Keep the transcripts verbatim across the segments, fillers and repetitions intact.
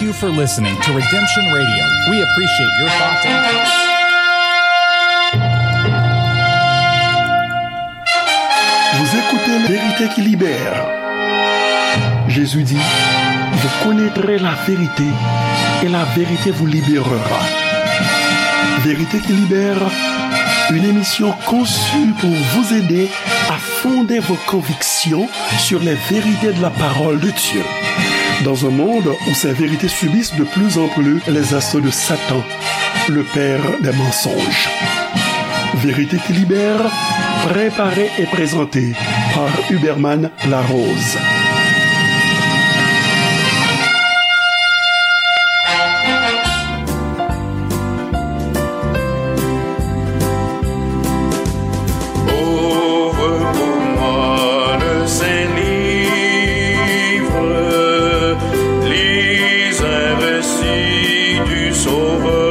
Thank you for listening to Redemption Radio. We appreciate your thoughts and comments. Vous écoutez La Vérité qui libère. Jésus dit, vous connaîtrez la vérité et la vérité vous libérera. Vérité qui libère, une émission conçue pour vous aider à fonder vos convictions sur les vérités de la parole de Dieu. Dans un monde où ces vérités subissent de plus en plus les assauts de Satan, le père des mensonges. Vérité qui libère, préparée et présentée par Huberman Larose. Ouvre pour moi le Saint-Livre, lis un récit du Sauveur.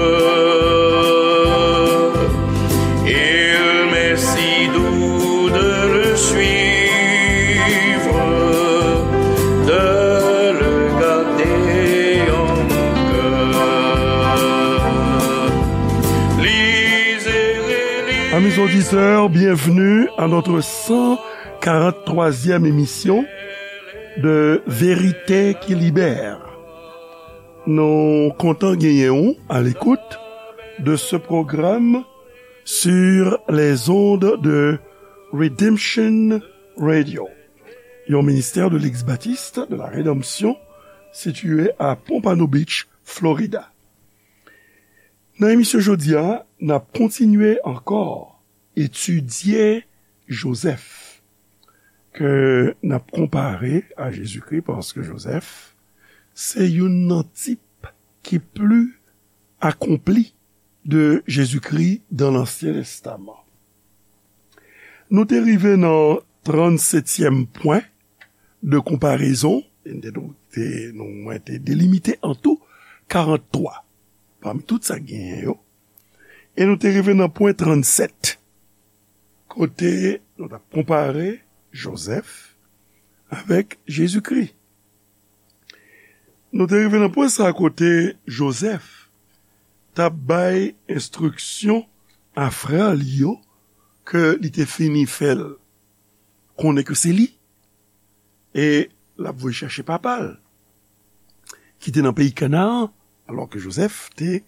Il m'est si doux de le suivre, de le garder en mon cœur. Lisez et relisez. Amis auditeurs, bienvenue à notre cent quarante-troisième émission de Vérité qui libère. Nou kontan genyen w à l'écoute de ce programme sur les ondes de Redemption Radio, yon ministère de l'Église baptiste de la Rédemption situé à Pompano Beach, Florida. Nan emisyon jodi a, n ap kontinye ankò etidye Jozèf, ke n ap konpare a Jezikri, paske Jozèf se youn nan tip ki pli akonpli de Jezikri dans l'Ancien Testament. Nou te rive nan trannsetyèm pwen de konparezon, e nou te, nou, mwen te delimite an tou karant twa pami tout sa k genyen yo. E nou te rive nan pwen trannsèt, kote nou t ap konpare Jozèf avèk Jezikri. Nou te rive nan pwen sa kote Jozèf t ap bay enstriksyon a frè li yo ke li te fini fè l konnen ke se li, e l ap voye chèche papa l, ki te nan peyi Kanaan, alò ke Jozèf te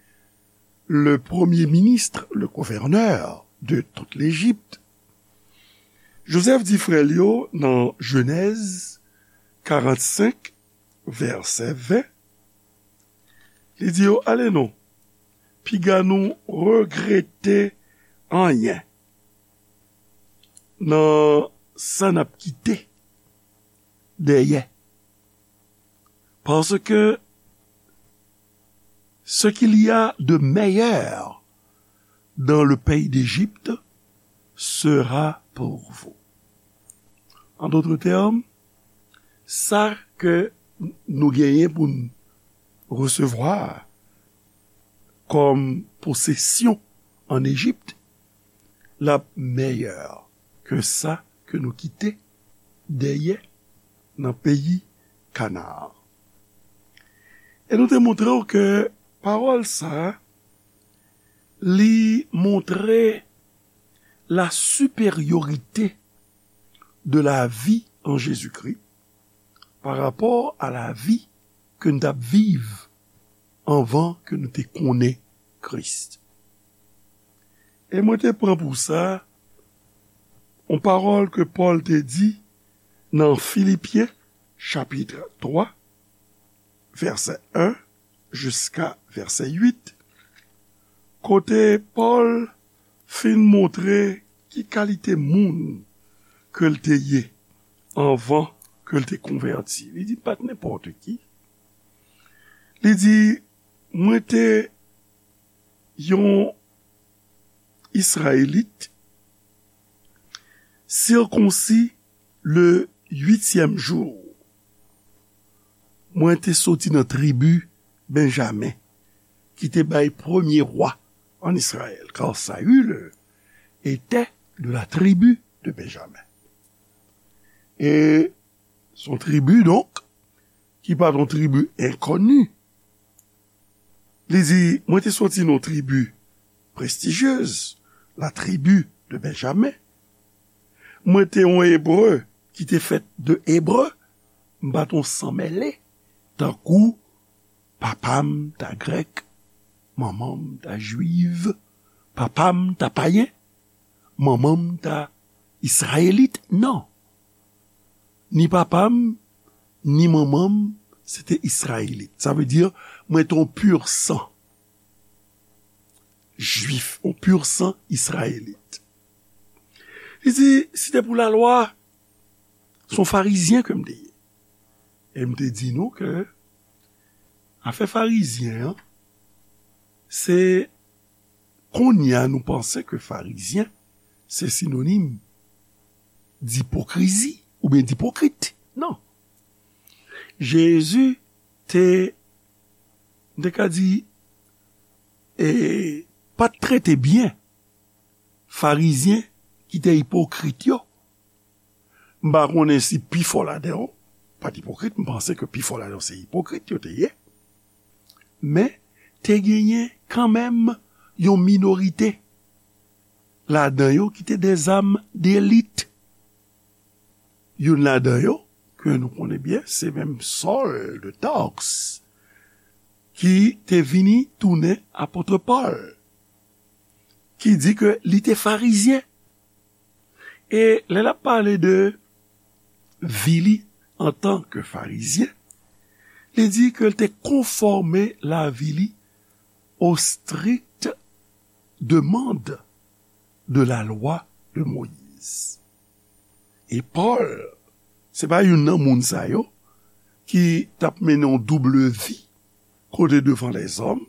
le premier ministre, le gouverneur de toute l'Égypte. Jozèf di frè l yo nan Jenèz karannsenk, vèsè ven, li di yo, "Ale non, piga nou regrete anyen nan sa n ap kite dèyè. Parce que ce qu'il y a de meilleur dans le pays d'Égypte sera pour vous." En d'autres termes, sa ke nou genyen pou n resevwa kòm posesyon an Ejip, l ap mèyè ke sa ke nou kite dèyè nan peyi Kanaan. E nou te montre w ke pawòl sa a, li montre la supériorité de la vie en Jésus-Christ par rapport à la vie ke n t ap viv anvan ke nou te konnen Kris. E mwen te pran pou sa yon pawòl ke Pòl te di nan Filipyen, chapit twa, vèsè en jiska vèsè uit, kote Pòl fin montre ki kalite moun ke l te ye anvan ke l te konvèti. Li di l pa t nenpòt ki. Li di, "Mwen te yon Izrayelit, sirkonsi le uityèm jou. Mwen te soti nan tribi Benjamen, ki te bay premye wa an Izrayèl, car Saül était de la tribu de Benjamin." E se yon tribi, donk, ki pa t yon tribi enkoni, Li di, mwen te soti nan yon tribi prestijyez, la tribi de Benjamen. Mwen te yon Ebre ki te fèt de Ebre, m pa t yon san mele, tankou papa m ta Grèk, manman m ta Jwiv, papa m ta payen, manman m ta Izrayelit. Non. Ni papa m, ni manman m, se te Izrayelit. Sa vle di, mwen te yon pur sang Jwif, yon pur sang Izrayelit. Li di, si te pou lalwa, se yon Farizyen ke m te ye. E m te di nou ke afè Farizyen an, se kounye a nou panse ke Farizyen, se sinonim dipokrizi oubyen dipokrit. Non. Jezi te, m te ka di, e, pa t trete byen Farizyen ki te ipokrit yo. M pa konnen si pifò ladan yo pa t ipokrit, m panse ke pifò ladan yo se ipokrit yo te ye. Men, te genyen kanmenm yon minorite ladan yo ki te de zam delit. Youn ladan yo, ke nou konnen byen, se menm Sòl de Tars, ki te vini tounen apot Pòl, ki di ke li te Farizyen. E lè l ap pale de vi li antanke Farizyen, li di ke l te konfòme lavi li aux strictes demandes de la loi de Moïse. E Pòl, se pa youn nan moun sa yo ki t ap mennen yon double vi kote devan lèzòm,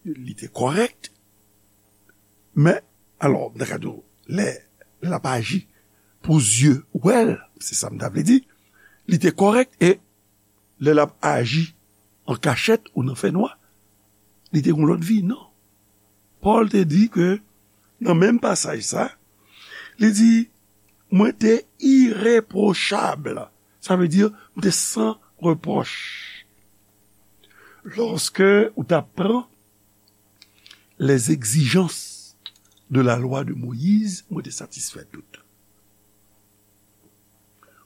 li te kòrèk, men, alò, m ta ka di w, lè, lè l ap aji pou zye wè l, se sa m ta vle di, li te kòrèk, e lè l ap aji an kachèt ou nan fènwa, li te gen yon lòt vi, non. Pòl te di ke, nan menm pasaj sa, li di, mwen te irepwochab. Sa vle di, mwen te san repwòch. Lòske ou ta pran les exigences de la loi de Moïse, mwen te satisfè tout.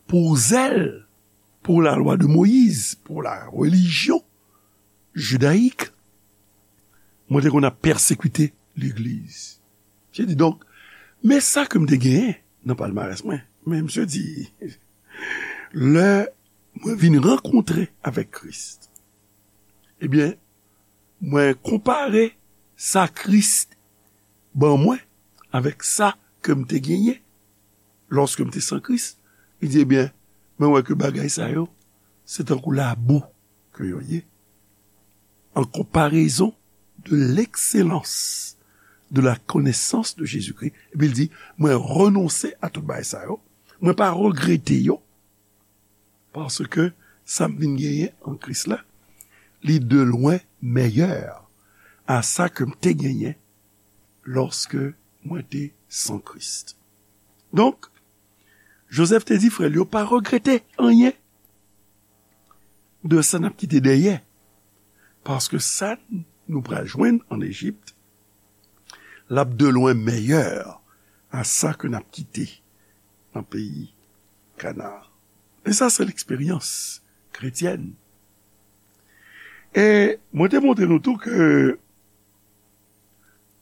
Pou zèl, pou la lwa de Moyiz, pou la relijyon jidayik, mwen te konn ap pèsekite legliz. Misye di, donk, men sa ke m te genyen nan palmarès mwen. Men misye di, lè mwen vin rankontre avèk Kris, ebyen, mwen konpare sa Kris ban mwen avèk sa ke m te genyen lòske m te san Kris. Li di, ebyen, mwen wè ke bagay sa yo, se tankou labou ke yo ye, en comparaison de l'excellence de la connaissance de Jésus-Christ. Epi l di, mwen renonse a tout bagay sa yo, mwen pa regrete yo, paske sa m vin genyen an Kris la, li de lwen mèyè a sa ke m te genyen lòske mwen te san Kris. Donk, Jozèf te di frè l yo pa regrete anyen de sa n ap kite dèyè, paske sa nou pral jwenn ann Ejipt, l ap de lwen mèyè a sa ke n ap kite nan peyi Kanaan. E sa se leksperyans kretyèn. E mwen te montre nou tou ke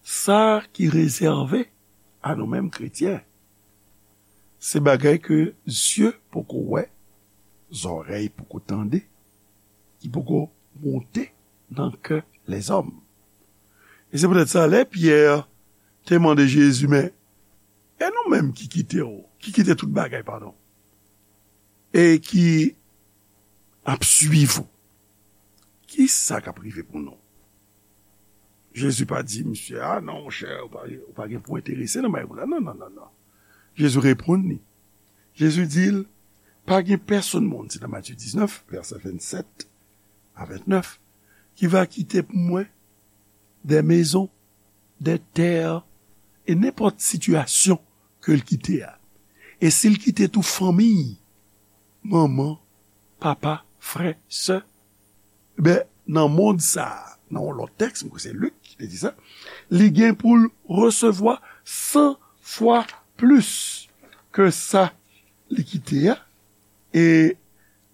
sa ki rezève a nou menm kretyen, se bagay ke zye poko wè, zòrèy poko tande, ki poko monte nan kè lèzòm. E se poutèt sa, lè Pyè te mande Jezi, men, e nou menm ki kite w, ki kite tout bagay, padon, e ki ap swiv ou, ki sa k ap rive pou nou? Jezi pa di misye, a non, monchè, ou pa, ou pa gen pou enterese nan bagay pou la. Non, non, non, non. Jezi reponn li. Jezi di l, pa gen pèsonn moun, se nan Matye diznèf, vèsè vennsèt a ventnèf, ki va kite pou mwen des maisons, des terres, e nenpòt sitiyasyon ke l kite a. E si l kite tou fanmi, manman, papa, frè, sè, ben, nan mond sa a, nan yon lòt tèks, mwen kwè se Lik ki te di sa, li gen pou l resevwa san fwa plis ke sa li kite a, e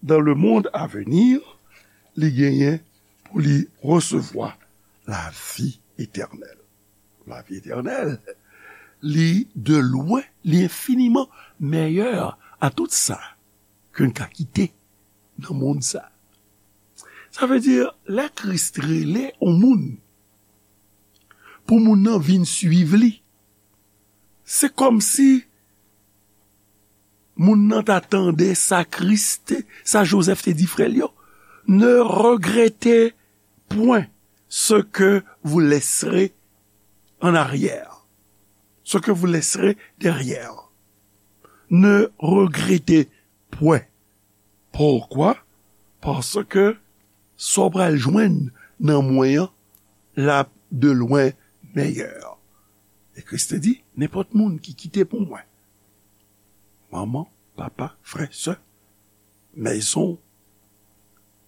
dans le monde à venir, li genyen pou li resevwa lavi etènèl. Lavi etènèl, li de lwen, li enfiniman mèyè a tout sa ke n ka kite nan mond sa. Sa vle di, lè Kris rele yon moun, pou moun nan vin swiv li, se kòmsi moun nan ta tande sa Kris te, sa Jozèf te di frè l yo, ne regrettez point ce que vous laisserez en arrière, ce que vous laisserez derrière. Ne regrettez point. Poukwa? Paske sa w pral jwenn nan mwen an, l ap de lwen mèyè. E Kris te di, nenpòt moun ki kite pou mwen manman, papa, frè, sè, mezon,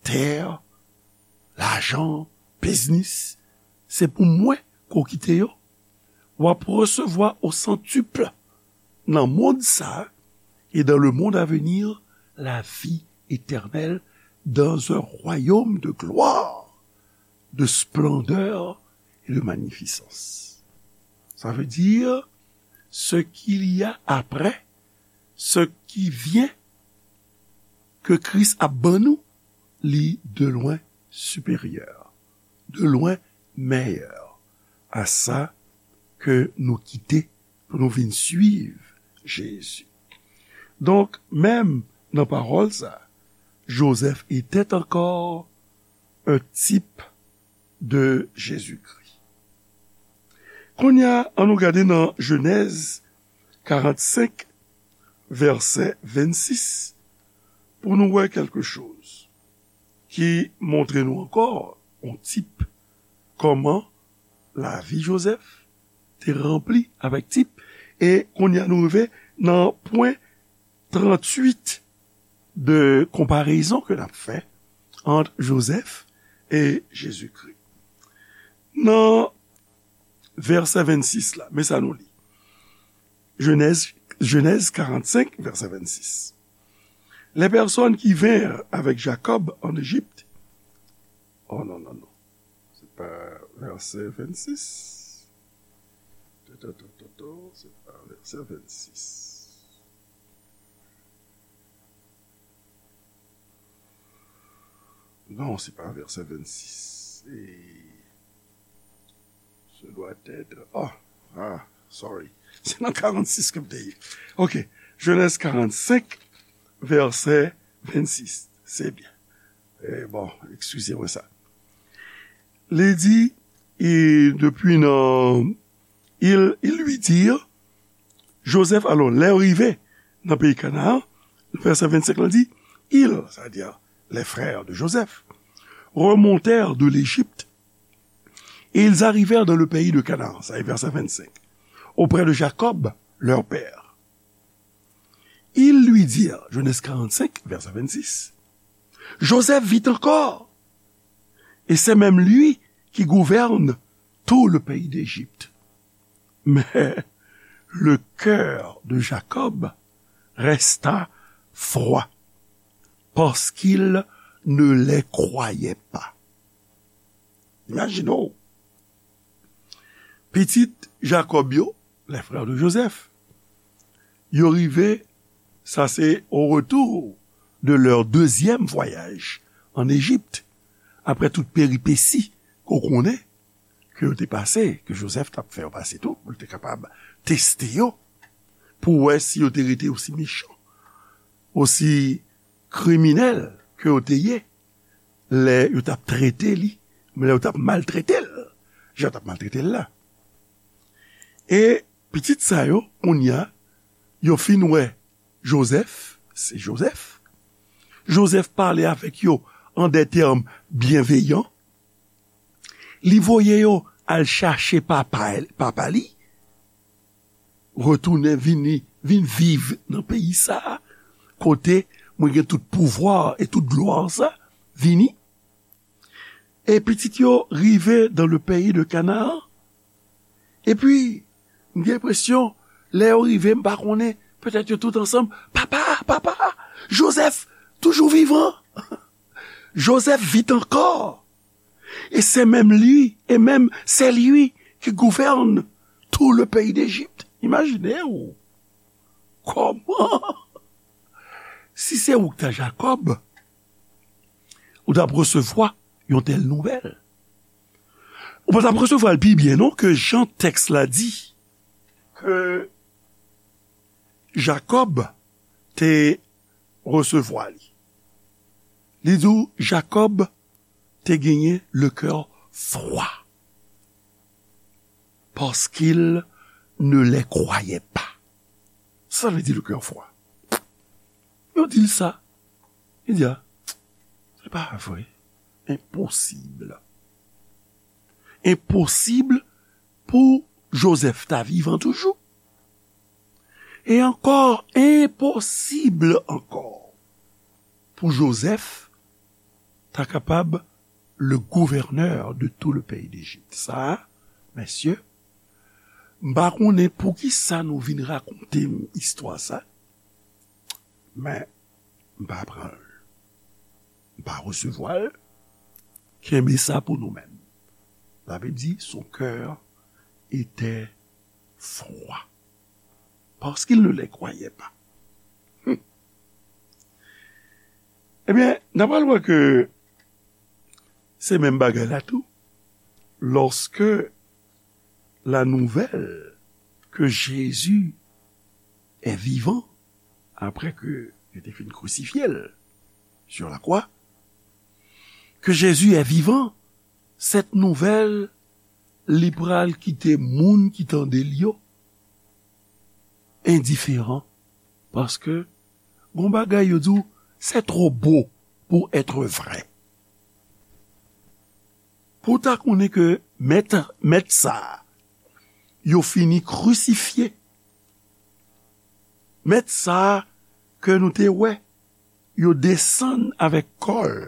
tè, lajan, biznis, se pou mwen ke w kite yo. W ap resevwa au centuple nan mond sa, et dans le monde à venir, la vie éternelle dans un royaume de gloire, de splendeur et de magnificence. Ça veut dire, ce qu'il y a après, ce qui vient, ke Kris ap ban nou, li de lwen siperyè, de lwen mèyè a sa ke nou kite pou nou vin swiv Jezi. Donk, menm nan pawòl sa, Joseph était encore un type de Jésus-Christ. Kounye a, ann nou gade nan Jenèz karannsenk, vèsè vennsis, pou nou wè kèlke choz ki montre nou ankò yon tip kòman lavi Joseph te ranpli avèk tip. E kounye a nou rive nan pwen tranntuit de konparezon ke n ap fè ant Joseph e Jezikri. Nan vèsè vennsis la, men sa nou li. Genèse, Genèse quarante-cinq, verset vingt-six. Les personnes qui vinrent avec Jacob en Égypte. Oh non, non, non. C'est pas verset vingt-six. Toto, toto, toto, c'est pas verset vingt-six. Non, c'est pas verset vingt-six. Et ce doit être, ah, ah, sorry. C'est dans quarante-six que je dis. Ok. Genèse quarante-cinq, verset vingt-six. C'est bien. Eh, bon, excusez-moi ça. Li di, e depi nan, ils, ils lui dirent, Joseph, alò, lè yo rive nan peyi Kanaan, vèsè vennsenk la di, ils, c'est-à-dire les frères de Joseph, remontèrent de l'Égypte, et ils arrivèrent dans le pays de Canaan, ça est verset vingt-cinq, auprès de Jacob, leur père. Ils lui dirent, Genèse quarante-cinq, verset vingt-six, Joseph vit encore, et c'est même lui qui gouverne tout le pays d'Égypte. Mais le cœur de Jacob resta froid, parce qu'il ne les croyait pas. Imagine, pitit Jakòb yo, les frères de Joseph, yo rive, sa se au retour de leur deuxième voyage en Égypte, apre tout peripesi ke w konnen ke yo te pase, ke Joseph t ap fè yo pase tou, pou l te kapab teste yo, pou wè si yo te rete osi mechan, osi kriminèl ke yo te ye, lè yo t ap trete li, lè yo t ap maltrete l, jan yo t ap maltrete l la. E pitit sa yo, kounye a, yo fin wè Joseph, se Joseph. Joseph pale avèk yo an de tèm byenveyan. Li voye yo al chache papa, papa li, retounen vini, vin viv nan peyi sa a, kote mwen gen tout pouvwa e tout glwa sa, vini. E pitit yo rive dans le pays de Canaan. Epi, m gen enpresyon, lè yo rive, m pa konnen, petèt yo tout ansanm, papa, papa, Joseph toujou vivan. Joseph vit encore. Et c'est même lui, et même c'est lui qui gouverne tout le pays d'Égypte. Imajine w. Kòman? Si se ou k ta Jakòb, ou t ap resevwa yon tèl nouvèl. Ou pa t ap resevwa l pi byen non ke jan tèks la di ke Jakòb te resevwa li. Li di w Jakòb te genyen le cœur froid parce qu'il ne les croyait pas. Sa vle di le cœur froid. Yo di l sa. Li di a, se pa vre. Enposib. Enposib pou Joseph ta vivan toujou. E ankò, enposib ankò pou Joseph ta kapab le gouvènè de tout le pays d'Égypte. Sa, mesye, m pa konnen poukisa nou vin rakonte m istwa sa, men m pa pran l. M pa resevwa l. Kenbe sa pou nou menm. La Bible dit, son cœur était froid. Parce qu'il ne les croyait pas. Hmm. Ebyen, n ap al wè ke se menm bagay la tou. Lorsque la nouvelle que Jésus est vivant, après que il était fin crucifié sur la croix, que Jésus est vivant, cette nouvelle, li pral kite moun ki tande l yo endiferan, paske gon bagay yo di w, c'est trop beau pour être vrai. Pou w ta konnen ke mèt, mèt sa a, yo fini krisifye. Mèt sa a ke nou te wè, yo desann avèk kò l,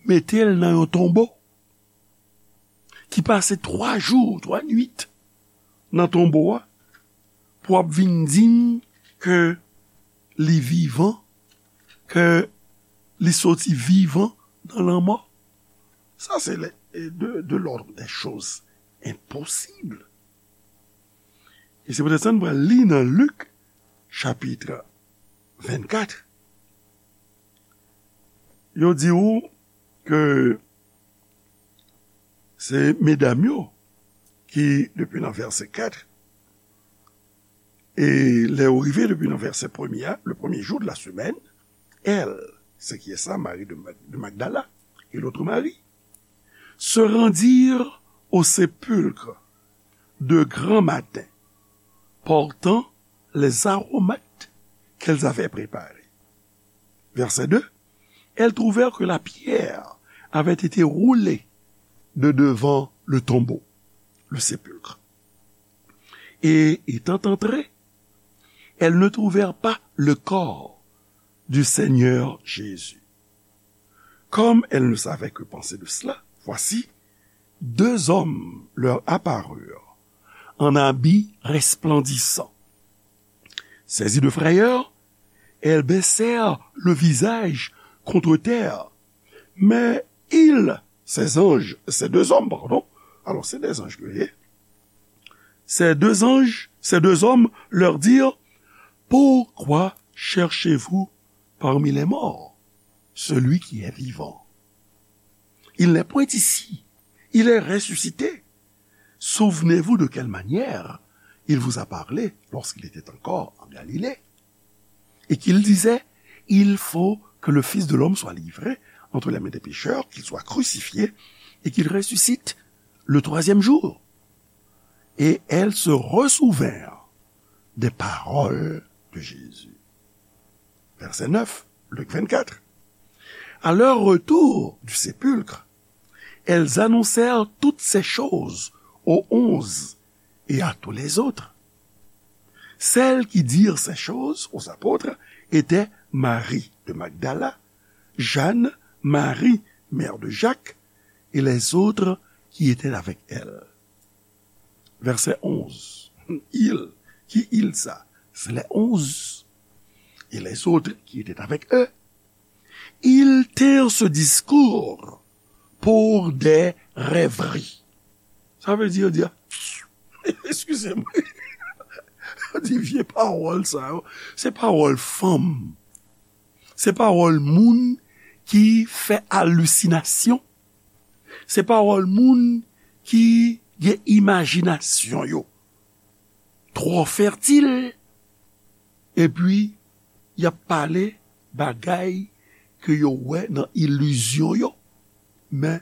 mete l nan yon tonbo, ki pase twa jou, twa nuit nan tonbo a, pou ap vin di n ke li vivan, ke li soti vivan nan lanmò. Sa se de, de l'ordre des choses impossibles. E se poutèt sa n pral li nan Lik, chapit vennkat. Yo di w ke se medam yo ki, depi nan vèsè kat, e lè yo rive depi nan vèsè premye a, le premier jour de la semaine, elle, c'est qui est ça, Marie de Mag-, de Magdala, et l'autre Marie, se rendirent au sépulcre de grand matin, portant les aromates qu'elles avaient préparés. Verset deux, elles trouvèrent que la pierre avait été roulée de devant le tombeau, le sépulcre. Et étant entrées, elles ne trouvèrent pas le corps du Seigneur Jésus. Comme elles ne savaient que penser de cela, voici, deux hommes leur apparurent en habits resplendissants. Saisies de frayeur, elles baissèrent le visage contre terre. Mais ils, ces anges, ces deux hommes, pardon, alors c'est des anges que, ces deux anges, ces deux hommes leur dirent, pourquoi cherchez-vous parmi les morts celui qui est vivant? Il n'est point ici, il est ressuscité. Souvenez-vous de quelle manière il vous a parlé lorsqu'il était encore en Galilée, et qu'il disait, il faut que le Fils de l'homme soit livré entre les mains des pécheurs, qu'il soit crucifié, et qu'il ressuscite le troisième jour. Et elles se resouvinrent des paroles de Jésus. Verset neuf, Luc vingt-quatre. À leur retour du sépulcre, elles annoncèrent toutes ces choses aux onze et à tous les autres. Celles qui dirent ces choses aux apôtres étaient Marie de Magdala, Jeanne, Marie, mère de Jacques, et les autres qui étaient avec elle. Verset onze. Il, ki il sa? C'est les onze. Et les autres qui étaient avec eux. Ils tinrent ce discours pour des rêveries. Sa vle di, yo di, ah, excusez-moi. Yo di vye pawòl sa yo, se pawòl fanm. Se pawòl moun ki fè alisinasyon. Se pawòl moun ki gen imajinasyon yo twò fètil, epi y ap pale bagay ke yo wè nan ilizyon yo. Men,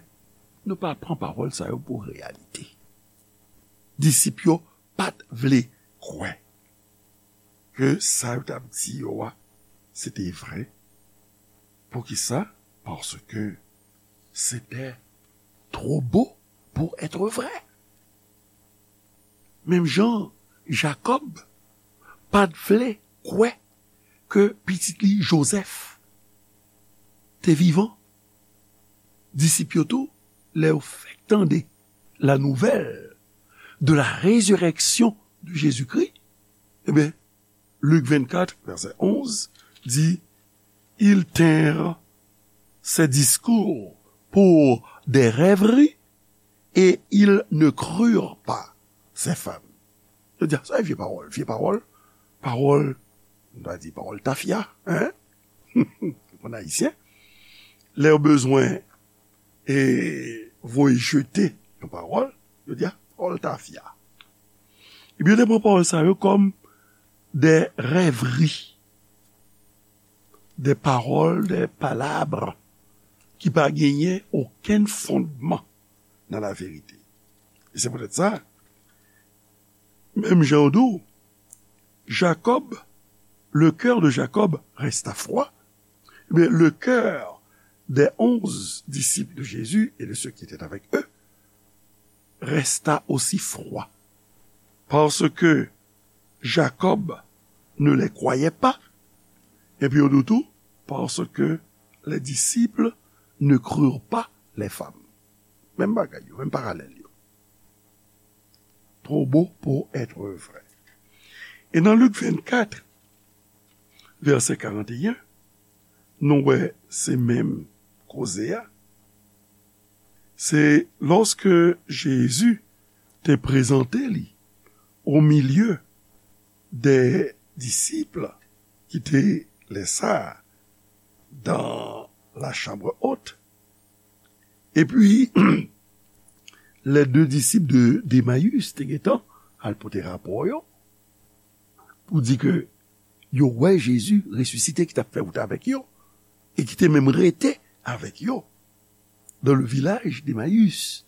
nou pa pran pawòl sa yo pou reyalite. Disip yo pa t vle kwè ke sa yo t ap di yo a, se te vre. Poukisa? Parce que c'était trop beau pour être vrai. Menm jan Jakòb pa t vle kwè ke pitit li Jozèf te vivan. Disip yo tou, lè yo fèk tande la nouvelle de la résurrection de Jésus-Christ, ebyen, Lik vennkat, vèsè onz, di, ils tinrent ces discours pour des rêveries et ils ne crurent pas ces femmes. Yo di, sa e vye pawòl, vye pawòl, pawòl, nou ta di pawòl tafya, hein? Pou ayisyen, lè yo bezwen e voye jete yon pawòl, yo di, a, pawòl tafya. Ebyen, yo te pran pawòl sa yo kòm de rèvri, de pawòl, de palabres ki pa genyen okenn fondman nan laverite. E se poutèt sa, menm jan yo di w, Jacob, le cœur de Jacob resta froid, eh bien, le cœur des onze disciples de Jésus et de ceux qui étaient avec eux resta aussi froid. Parce que Jacob ne les croyait pas, et puis au tout, parce que les disciples ne crurent pas les femmes. Menm bagay yo, menm paralèl yo. Trop beau pour être vrai. E nan Lik vennkat, vèsè karanteyen, nou wè se menm koze a. Se lòske Jezi te prezante li au milieu des disciples ki te lè sa a dans la chambre haute. Epi, les deux disciples de, d'Emmaüs te gentan al pote rapò yo pou di ke yo wè Jezi resisite ki t ap fè wout avèk yo e ki te menm rete avèk yo dans le village d'Emmaüs,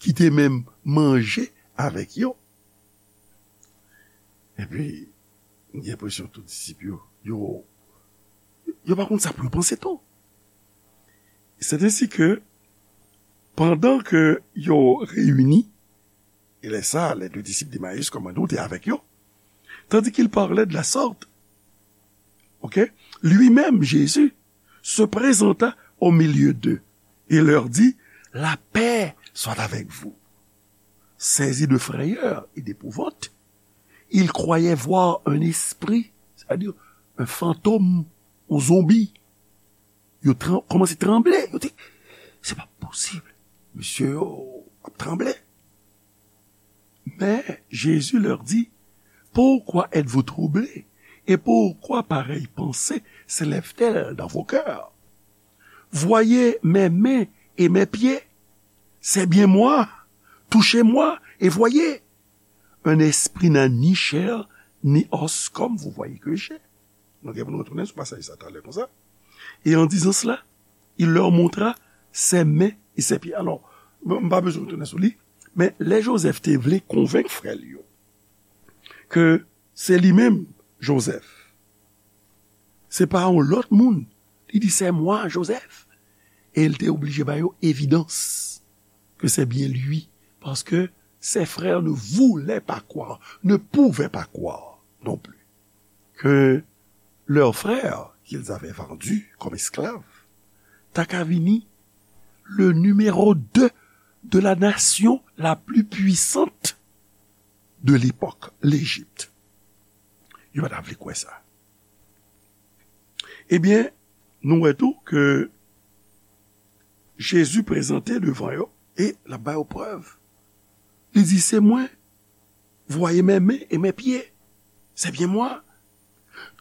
ki te menm manje avèk yo. Epi, m gen enpresyon tout disip yo, yo, yo pa konn sa pou yo panse tou. C'est ainsi que, pandan ke yo reyini, e lè sa, les deux disciples d'Emmaüs, kòm nou di, te avèk yo, tandis qu'il parlait de la sorte, ok, lui-même, Jésus, se présenta au milieu d'eux et leur dit, la paix soit avec vous. Saisis de frayeur et d'épouvante, ils croyaient voir un esprit, c'est-à-dire un fantôme, un zombie. Yo tran- kòmanse tranble. Yo di, se pa posib. Mesye yo ap tranble. Mais Jésus leur dit, pourquoi êtes-vous troublés? Et pourquoi pareille pensée s'élève-t-elle dans vos cœurs? Voyez mes mains et mes pieds. C'est bien moi. Touchez-moi et voyez. Un esprit n'a ni chair ni os comme vous voyez que j'ai. Nou gen pou nou retounen sou pasaj sa talè konsa. Et en disant cela, il leur montra ses mains et ses pieds. Alors, bon, m pa bezwen retounen sou li, men lè Jozèf te vle konvenk frè l yo ke se li menm, Jozèf, se pa yon lòt moun, li di, c'est moi, Joseph. E l te oblije ba yo evidans que c'est bien lui, parce que ses frères ne voulaient pas croire, ne pouvaient pas croire non plus que leur frère qu'ils avaient vendu comme esclave ta ka vini le numéro deux de la nation la plus puissante de l'époque, l'Égypte. Yo pa ta vle kwè sa. Ebyen, nou wè tou ke Jezi prezante devan yo e l ap ba yo prèv. Li di, c'est moi, voyez mes mains et mes pieds. C'est bien moi.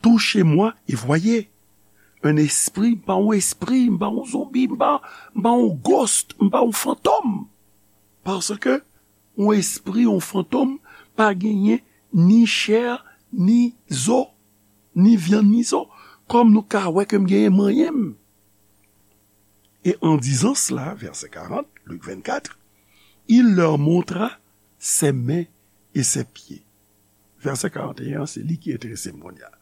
Touchez-moi et voyez. Un esprit, m pa yon espri, m pa yon zonbi, m pa, m pa yon ghost, m pa yon fantom. Paske yon espri, yon fantom, pa genyen ni chè, ni zo, ni vyann, ni zo. Kòm nou ka wè ke m genyen manyen m. Et en disant cela, verset quarante, Luc vingt-quatre, il leur montra ses mains et ses pieds. Vèsè karant e en, se li ki enterese m kounye a.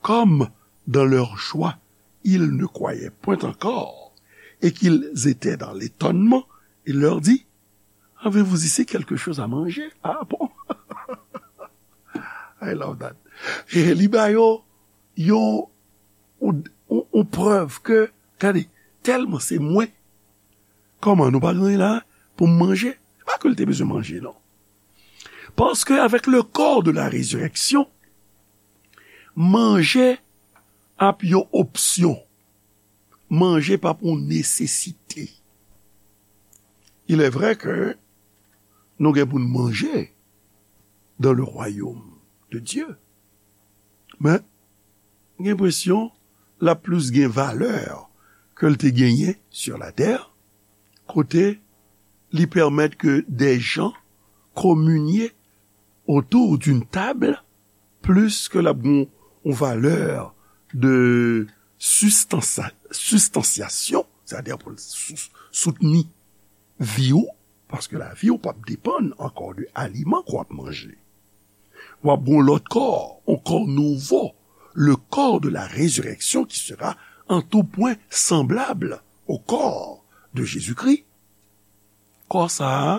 Comme dans leur joie, ils ne croyaient point encore, et qu'ils étaient dans l'étonnement, il leur dit, avez-vous ici quelque chose à manger? Ah bon? I love that. E li ba yo yon, yon, yon, yon prèv ke, gade, tèlman se mwen, kòman nou pa gen anyen la pou m manje? Se pa ke l te bezwen manje, non. Paske avec le corps de la résurrection, manje ap yon opsyon. Manje p ap yon nesesite. Il est vrai que nou gen pou n manje dans le royaume de Dieu. Men, m gen enpresyon l ap plis gen valè ke l te genyen sur la terre, kote li pèmèt ke des gens communier autour d'une table, plis ke l ap gen yon valè de sistansa-, sistansyasyon, sètadi pou l sou-, soutni vi w, paske lavi w p ap depann ankò de aliman ke w ap manje. W ap gen yon lòt kò, yon kò nouvo, le corps de la résurrection qui sera en tout point semblable au corps de Jésus-Christ. Kò sa a,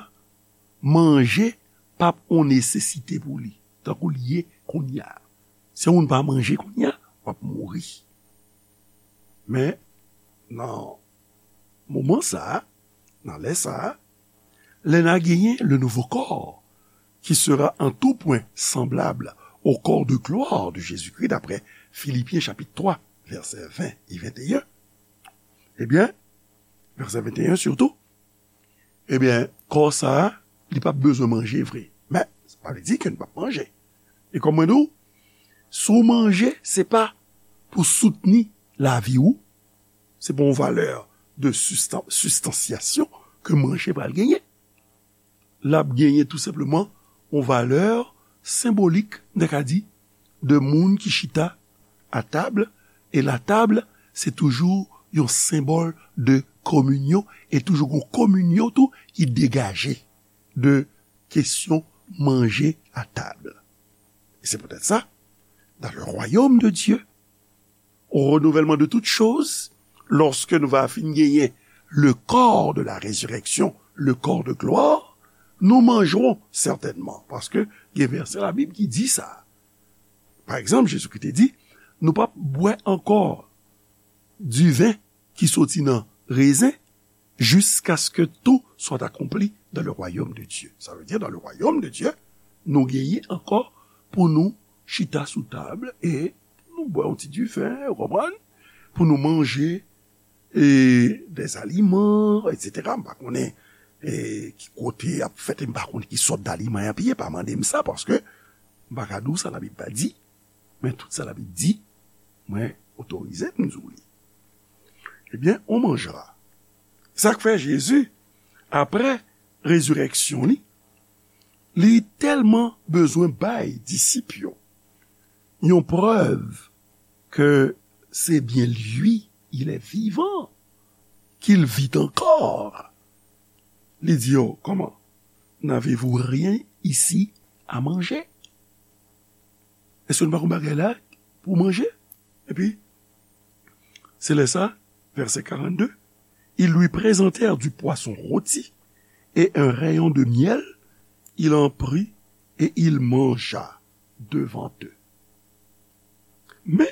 manje p ap yon nesesite pou li, tankou l ye kounye a. Si yon moun pa manje kounye a, w ap mouri. Men, nan moman sa a, nan lè sa a, lè n a genyen le nouveau corps, qui sera en tout point semblable au corps de gloire de Jésus-Christ, d'après Philippiens chapitre trois, versets vingt et vingt et un, ebyen, vèsè venteyen sitou, ebyen, kò sa a, li p ap bezwen manje vre. Men, sa pa vle di ke n p ap manje. E kòm mwen di w, si w manje, se pa pou soutni lavi w, se pa yon valè de sustan-, sistansyasyon ke manje pral genyen. L ap genyen tou senpleman yon valè senbolik, n ta ka di, de moun ki chita a tab, e la tab, se toujou yon senbòl de kominyon, e toujou gon kominyon tou ki degaje de kesyon manje a tab. E se poutèt sa, dans le royaume de Dieu, au renouvellement de toutes choses, lòske nou va fin genyen le corps de la résurrection, le corps de gloire, nous mangerons certainement, paske gen vèsè Labib ki di sa. Pa egzanp, Jezikri te di, nou p ap bwè ankò diven ki soti nan rezen, jusqu'à ce que tout soit accompli dans le royaume de Dieu. Sa vle di, dans le royaume de Dieu, nou genyen ankò pou nou chita sou tab e pou nou bwè yon ti diven, ou konprann? Pou nou manje e, des aliments, et cetera. M pa konnen e, ki kote y ap fèt, e m pa konnen ki sòt daliman y ap ye, pa mande m sa, paske m pa ka di w sa Labib pa di, men tout sa Labib di, mwen otorize m di w li. Ebyen, on manjera. Sa k fè Jezi, apre rezirèksyon li, li tèlman bezwen bay disip yo yon prèv ke c'est bien lui, il est vivant, qu'il vit encore. Li di yo, kòman? N'avez-vous rien ici à manger? Èske nou pa gon bagay la pou manje? Epi, se lè sa, vèsè karannde, ils lui présentèrent du poisson rôti et un rayon de miel, il en prit et il mangea devant eux. Men,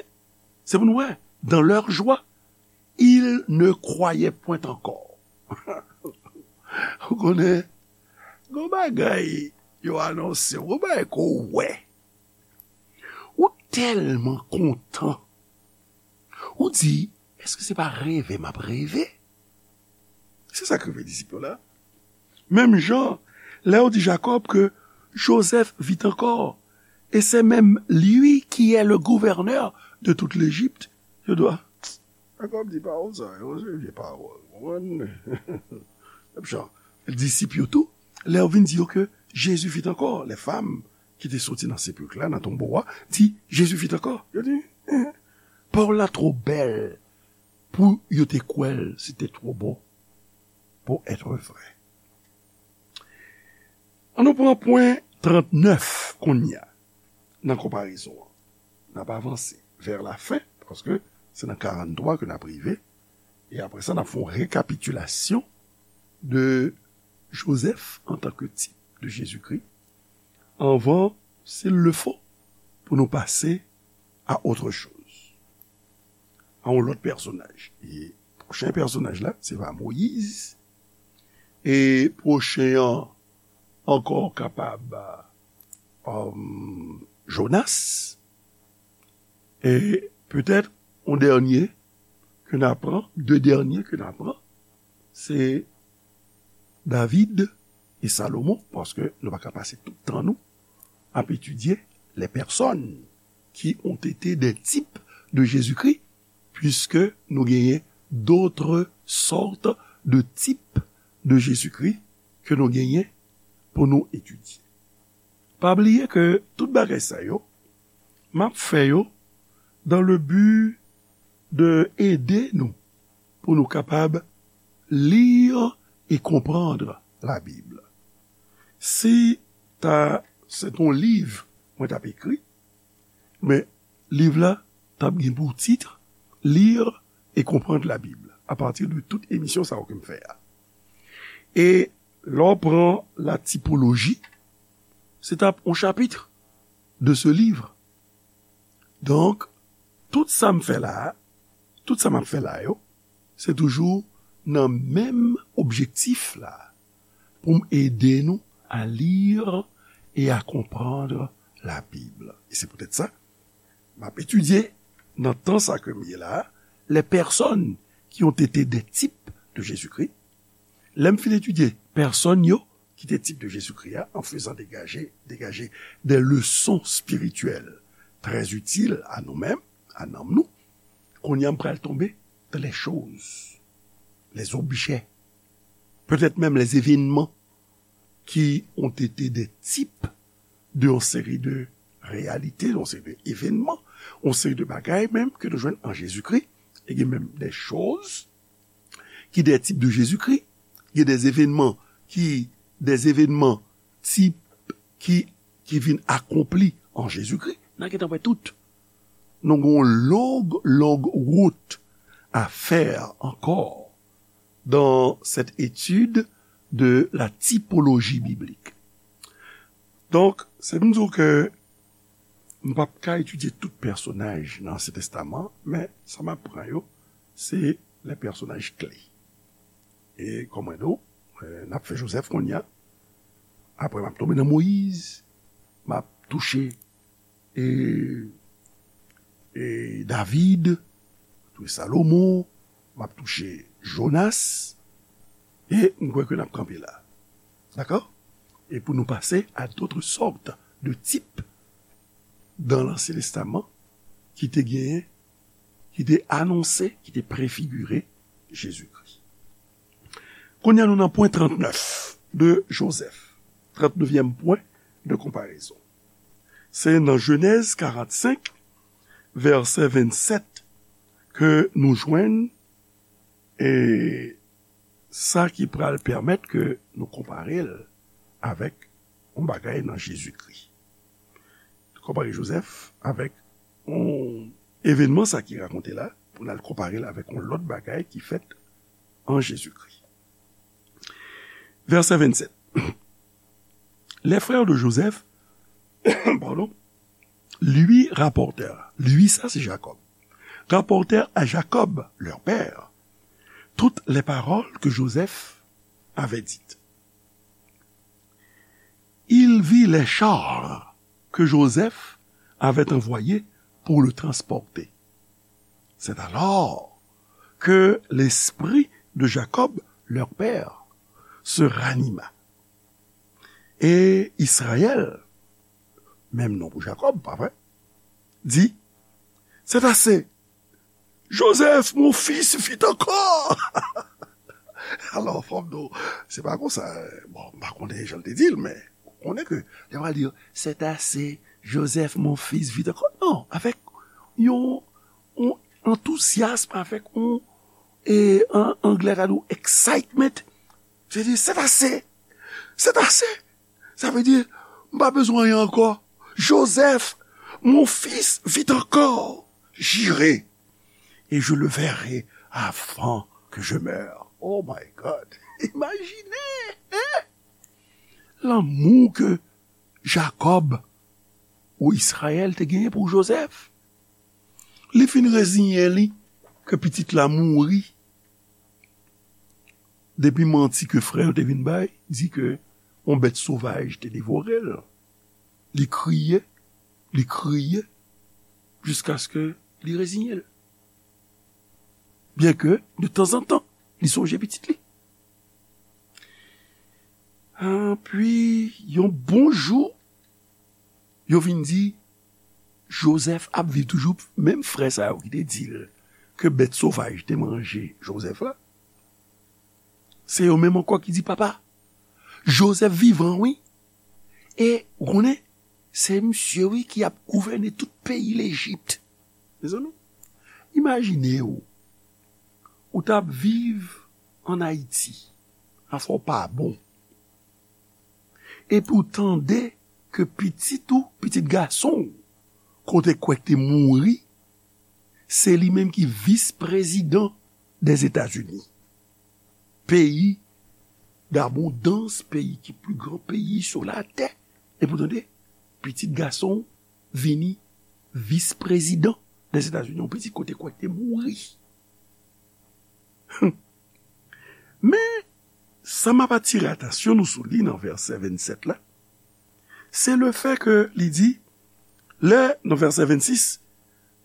se pou nou wè, dans leur joie, ils ne croyaient point encore. Ou konnen, gon bagay yo anonse, gon bagay ke w wè. Ou tèlman kontan. Ou di, èske se pa reve m ap reve? Se sa k rive disip yo la. Menm jan, lè yo di Jakòb ke Joseph vit encore, et c'est même lui qui est le gouverneur de toute l'Égypte, yo di, a, Jakòb di pawòl sa yo, se vye pawòl. Konprann? Disip yo tou, lè yo vin di yo ke Jezi vit ankò, lè fanm ki te soti nan sepilk la, nan tonbo a, di, Jezi vit ankò. Yo di, eh, pawòl la twò bèl pou yo te kwè l, se te twò bon pou èt vrè. Ann nou pran pwen trannèf kounye a, nan konparezon an. N ap avanse vè lafen, paske se nan karanntrwa ke n ap rive, e apre sa, n ap fè yon rekapitilasyon de Joseph en tant que type de Jésus-Christ, anvan, s'il le faut, pou nou pase à autre chose, a yon lòt pèsonaj. E pwochen pèsonaj la, se va Moyiz. E pwochen an ankò kapab, um, Jonas. E petèt, yon dènye ke n a pran, de dènye ke n a pran, se David e Salomon, paske nou pa ka pase tout tan nou ap etidye les personnes qui ont été des types de Jésus-Christ, puisque nou genyen d'autres sortes de types de Jésus-Christ ke nou genyen pou nou etidye. Pa bliye ke tout bagay sa yo, m ap fè yo dans le but de ede nou pou nou kapab lire et comprendre la Bible. Si ta, se t on liv mwen t ap ekri, men liv la t ap gen pou tit Lire et comprendre la Bible, à partir de tout emisyon sa yo ke m fè a. E lè w pran la typologie, se t ap on chapitre de ce livre. Donk, tout sa m fè la a, tout sa m ap fè la yo, se toujou nan menm objektif la, pou m ede nou à lire et à comprendre la Bible. E se poutèt sa, m ap etidye nan tan sa ke m ye la a, les personnes qui ont été des types de Jésus-Christ. Lè m fin etidye pèsòn yo ki te type de Jésus-Christ a, en faisant dégager, dégager des leçons spirituelles très utiles à nous-mêmes, à nanm nou, kounye a m pral tonbe dans les choses, les objets, peut-être même les événements qui ont été des types de yon seri de réalités, yon seri de événements, yon seri de bagay menm ke nou jwenn an Jezikri. E gen menm des choses qui des types de Jésus-Christ, gen des événements qui, des événements types qui, qui vin akonpli an Jezikri. N a gentan wè tout. Nou gen yon long, long wout à faire encore dans cette étude de la typologie biblique. Donk, se pou m di w ke m p ap ka etidye tout pèsonaj nan Ansyen Testaman, men sa m ap pran yo, se les personnages clés. E kòm mwen di w, eh, n ap fè Joseph kounye a. Apre, m ap tonbe nan Moyiz. M ap touche e, e David, touche Salomon, m ap touche Jonas, e m kwè ke n ap kanpe la. Dakò? E pou nou pase à d'autres sortes de types dans l'Ancien Testament ki te genyen, ki te anonse, ki te prefigire Jezikri. Kounye a nou nan pwen trannèf de Joseph, trannèvyèm pwen de konparezon. Se nan Jenèz karannsenk, vèsè vennsèt, ke nou jwenn, e, sa ki pral pèmèt ke nou konpare l avèk yon bagay nan Jezikri. Konpare Joseph avèk yon evènman sa ki rakonte la, pou n al konpare l avèk yon lòt bagay ki fèt an Jezikri. Vèsè vennsèt. Les frères de Joseph, pardon, lui rapportèrent, lui, sa se Jacob, rapportèrent à Jacob, leur père, toutes les paroles que Joseph avait dites. Il vit les chars que Joseph avait envoyés pour le transporter. C'est alors que l'esprit de Jacob, leur père, se ranima. Et Israël, même nom pour Jacob, pas vrai, dit, c'est assez, Joseph, mon fils, vit encore. Alò, fò m di w, se pa konsa, bon, m pa konnen jan l te di l, men ou konnen ke lè pral di, c'est assez, Joseph, mon fils, vit encore. Non, avèk yon, yon antouzyasm, avèk yon, e, an anglè ta di w excitement. Se di, c'est assez, c'est assez. Sa vle di, m pa bezwen anyen ankò. Joseph, mon fils, vit encore. J'irai et je le verrai avant que je meure. Oh my God. Imajine, hein? Lanmou ke Jacob ou Israël te genyen pou Joseph. Li fin reziyen li ke pitit la mouri. Depi manti ke frè yo te vin bay, di ke yon bèt sovaj te devore l. Li kriye, li kriye, jiskaske li reziye l. Byenke, de tanzantan, li sonje pitit li. Epi, yon bon jou, yo vin di, Joseph ap viv toujou, menm frè sa yo ki te di l ke bèt sovaj te manje Joseph la, se yo menm ankò ki di, papa, Joseph vivan, wi. E, ou konnen, se misye, wi, ki ap gouvène tout peyi Lejip. Mezanmi, imajine w, ou t ap viv ann Ayiti, afè w pa bon. Epi w tande ke pitit ou, pitit gason w, ke w te kwè k te mouri, se li menm ki vis prezidan dèzetazini. Peyi dabondans, peyi ki pli gran peyi sou latè. Epi w tande, pitit gason w vini vis prezidan dèzetazini, yon pitit ke w te kwè k te mouri. Men, sa m ap atire atansyon nou sou li nan vèsè vennsèt la, se le fè ke li di, lè, nan vèsè vennsis,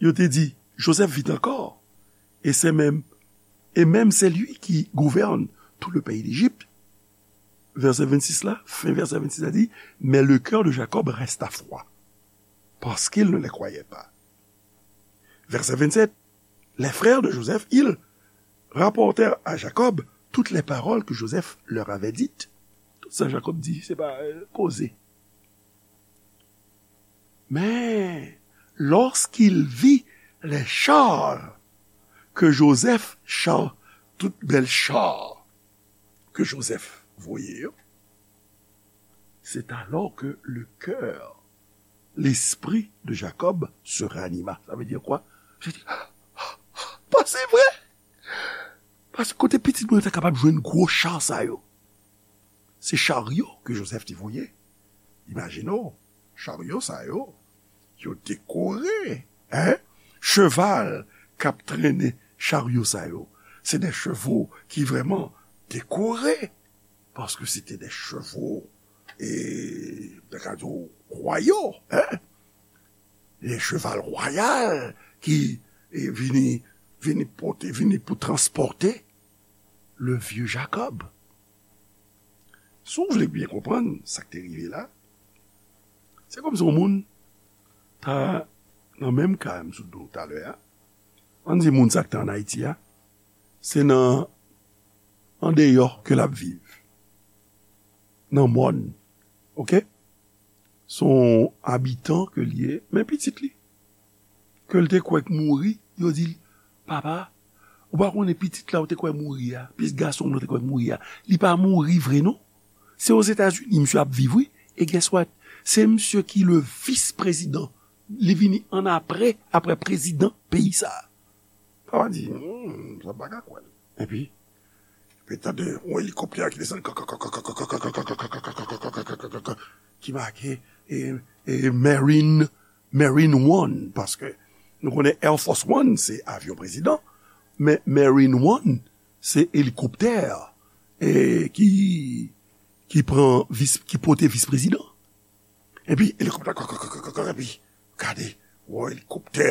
yo te di, Joseph vit encore, et c'est même, et même c'est lui qui gouverne tout le pays d'Égypte. Vèsè vennsis la, fen vèsè vennsis la di, mais le cœur de Jacob resta froid, parce qu'il ne les croyait pas. Verset vingt-sept, les frères de Joseph, ils rapportèrent à Jacob toutes les paroles que Joseph leur avait dites. Tout sa Jakòb di, se pa, euh, koze. Mais lorsqu'il vit les chars que Joseph, char, tout bèl cha ke Joseph voye yo, c'est alors que le cœur, l'esprit de Jacob se ranima. Sa vle di kwa? Li di, pa se vre! Paske kote pitit mwen ta kapab jwenn gwo cha sa yo? Se charyo ke Joseph te voye. Imajine w, charyo sa yo, yo dekore, hein? Cheval k ap trennen charyo sa yo, se de chevo ki vrèman dekore, paske se te de chevo, e, ta ka di w, wayal, hein? De cheval wayal ki, e, vini, vini pote, vini pou transpòte le vieux Jacob. Si w vle byen konprann sa k te rive la, se kòmsi yon moun ta nan menm ka m sot di w talè a. Ann di moun sa k te ann Ayiti a, se nan, andeyò ke l ap viv. Nan mòn. Oke? Se yon abitan ke l ye, men pitit li, ke l te kwè k mouri, yo di l, papa, ou pa konnen pitit la ou te kwè mouri a, pitit gason w la ou te kwè mouri a, li pa mouri vre non. Se Ozetazini misye ap viv, wi. E guess what? Se misye ki le vis prezidan. Li vini ann apre, apre prezidan peyi sa a. Papa di, hmm, sa pa ka kwè l. Epi, epi tande yon elikoptè ki desann, ki make, e, e, Marine, Marine One, paske nou konnen Air Force One, se avyon prezidan, men Marine One, se elikoptè e ki, ki pran vis, ki pote vis prezidan. Epi elikoptè, epi gade, wè elikoptè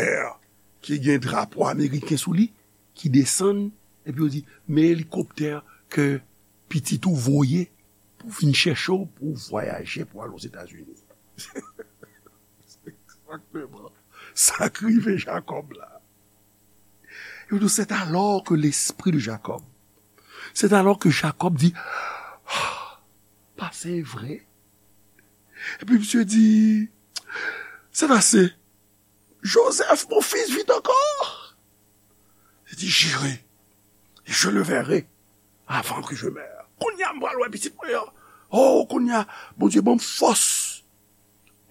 ki gen drapo ameriken sou li, ki desann, epi yo di, men elikoptè ke pitit ou voye pou vin chèche w, pou vwayaje, pou al Ozetazini. Egzakteman. Sa k rive Jakòb la. Yo di, c'est alors que l'esprit de Jacob. C'est alors que Jacob dit, ah, pa se vre. Epi misye di, c'est assez. Joseph, mon fils, vit encore. Il dit, j'irai, et je le verrai avant que je meure. Kounye a m pral wè pitit mwen an. Oh, kounye a, Bondye ban m fòs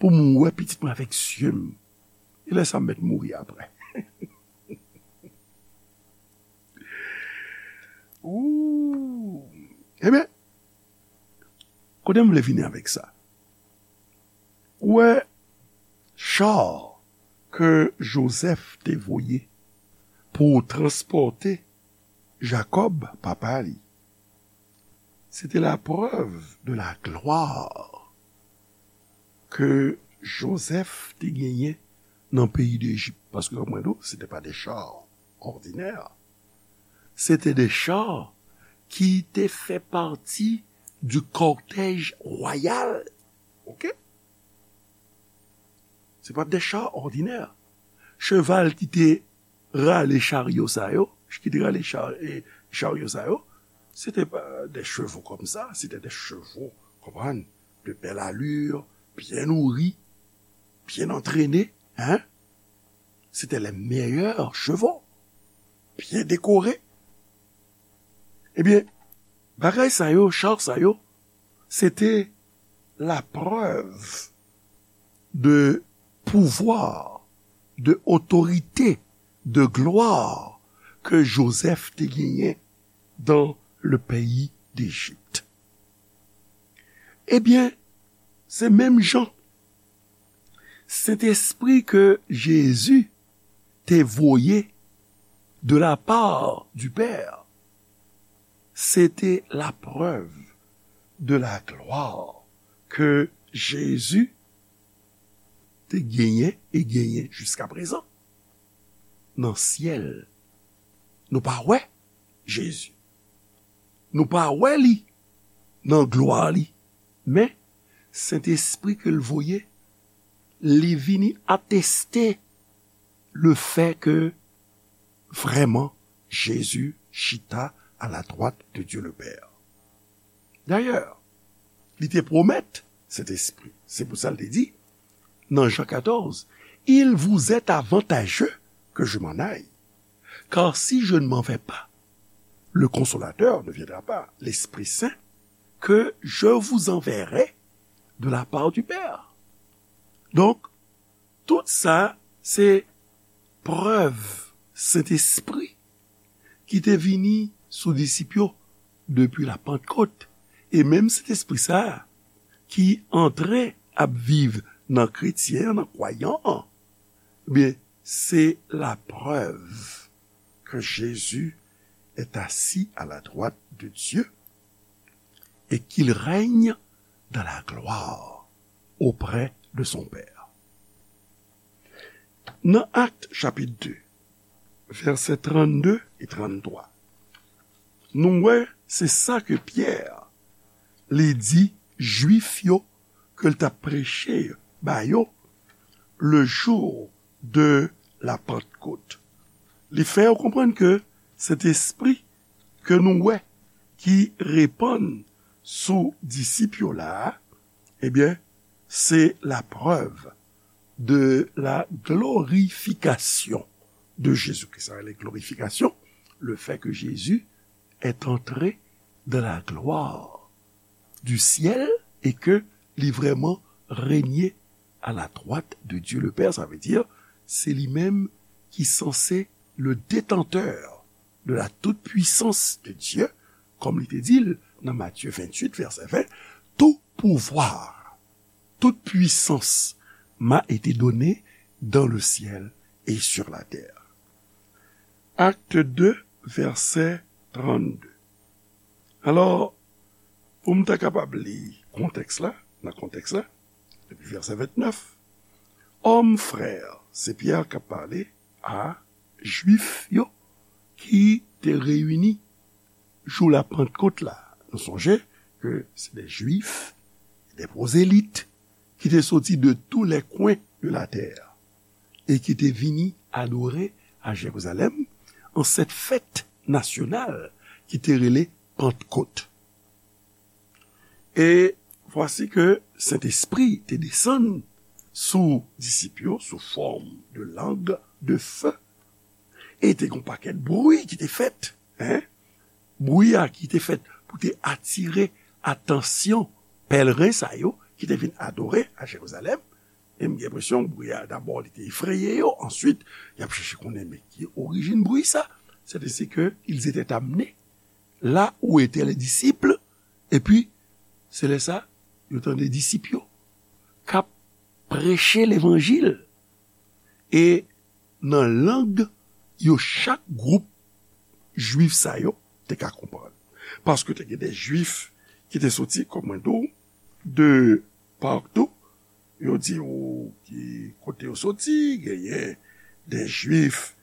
pou m wè pitit mwen avèk zye m. E lè sa m mèt mouri apre. Ooh. Ebyen, kote m vle vini avèk sa? Ou wè, cha ke Jozèf te voye pou transpòte Jakòb, papa li, se te la preuve de la gloire ke Jozèf te genyen nan peyi Dejip. Paske, kòm mwen di w, se te pa de cha òdinè. Se te de cha ki te fè pati du cortège royal. Oke? Se pa de cha òdinè. Cheval ki te rale charyo sa yo, ki te rale cha-, e, charyo sa yo, se te pa de chevaux comme ça, se te de chevaux, konprann, de belle allure, bien nourris, bien entraînés, hein? C'était les meilleurs chevaux, bien décorés. Ebyen, bagay sa yo, cha sa yo, se te la preuve de pouvwa, de otorite, de glwa ke Jozèf te genyen dans le pays d'Égypte. Ebyen, se menm jan Sentespri ke Jezi te voye de la part du Père, se te la preuve de la gloire ke Jezi te genyen e genyen jiska prezan nan syèl. Nou pa wè Jezi. Nou pa wè li nan glwa li. Men, Sentespri ke l voye, li vini ateste le fait que vraiment Jésus chita à la droite de Dieu le Père. Dayè, li te pwomèt Sentespri. Se pou sa l te di, nan Jan katòz, il vous est avantageux que je m'en aille. Car si je ne m'en vais pas, le Consolateur ne viendra pas, l'Esprit Saint, que je vous enverrai de la part du Père. Donk, tout sa, se prèv Sentespri ki te vini sou disip yo depi la Pantkot. E menm Sentespri sa a ki antre ap viv nan kretyen an, nan kwayan an, byen, se la preuve que Jésus est assis à la droite de Dieu et qu'il règne dans la gloire auprès de son Père. Nan Akt chapit de, vèsè trannde e tranntwa, nou wè se sa ke Pyè li di Jwif yo ke l t ap preche ba yo le jour de la Pentecôte. Li fè yo konprann ke Sentespri ke nou wè ki repann sou disip yo la a, ebyen, se la preuve de la glorification de Jésus-Christ. Sa rele glorification, le fait que Jésus est entré dans la gloire du ciel et que li vrèman règne à la droite de Dieu le Père. Sa vle di, se li menm ki sanse le détenteur de la toute puissance de Dieu, kòm li te di l nan Matthieu vingt-huit, vèsè ven, tout pouvoir, toute puissance m'a été donnée dans le ciel et sur la terre. Acte deux, vèsè trannde. Alò, pou m ta kapab li kontèks la, nan kontèks la, depi vèsè vennèf, Hommes frères, se Pyè k ap pale a Jwif yo ki te reyini jou la Pantkot la. Nou sonje ke se de Jwif, de pwozelit ki te soti de tous les coins de la terre e ki te vini adore a Jerizalèm an cette fête nationale ki te rele Pantkot. E vwasi ke Sentespri te desann sou disip yo sou fòm de lang de fe. E te gen yon pakèt bri ki te fèt, en? Bri a ki te fèt pou te atire atansyon pèlren sa yo ki te vin adore a Jerizalèm. E m gen enpresyon bri a, dabò, li te efreye yo. Answit, y ap chèche konnen, men ki orijin bri sa? C'est ainsi que ils étaient amenés là où étaient les disciples. Epi, se lè sa, yo tande disip yo k ap preche levanjil. E nan lang yo chak gwoup Jwif sa yo te ka konprann. Paske te gen de Jwif ki te soti, kòm mwen di w, de partou. Yo di w ki kote yo soti, genyen de Jwif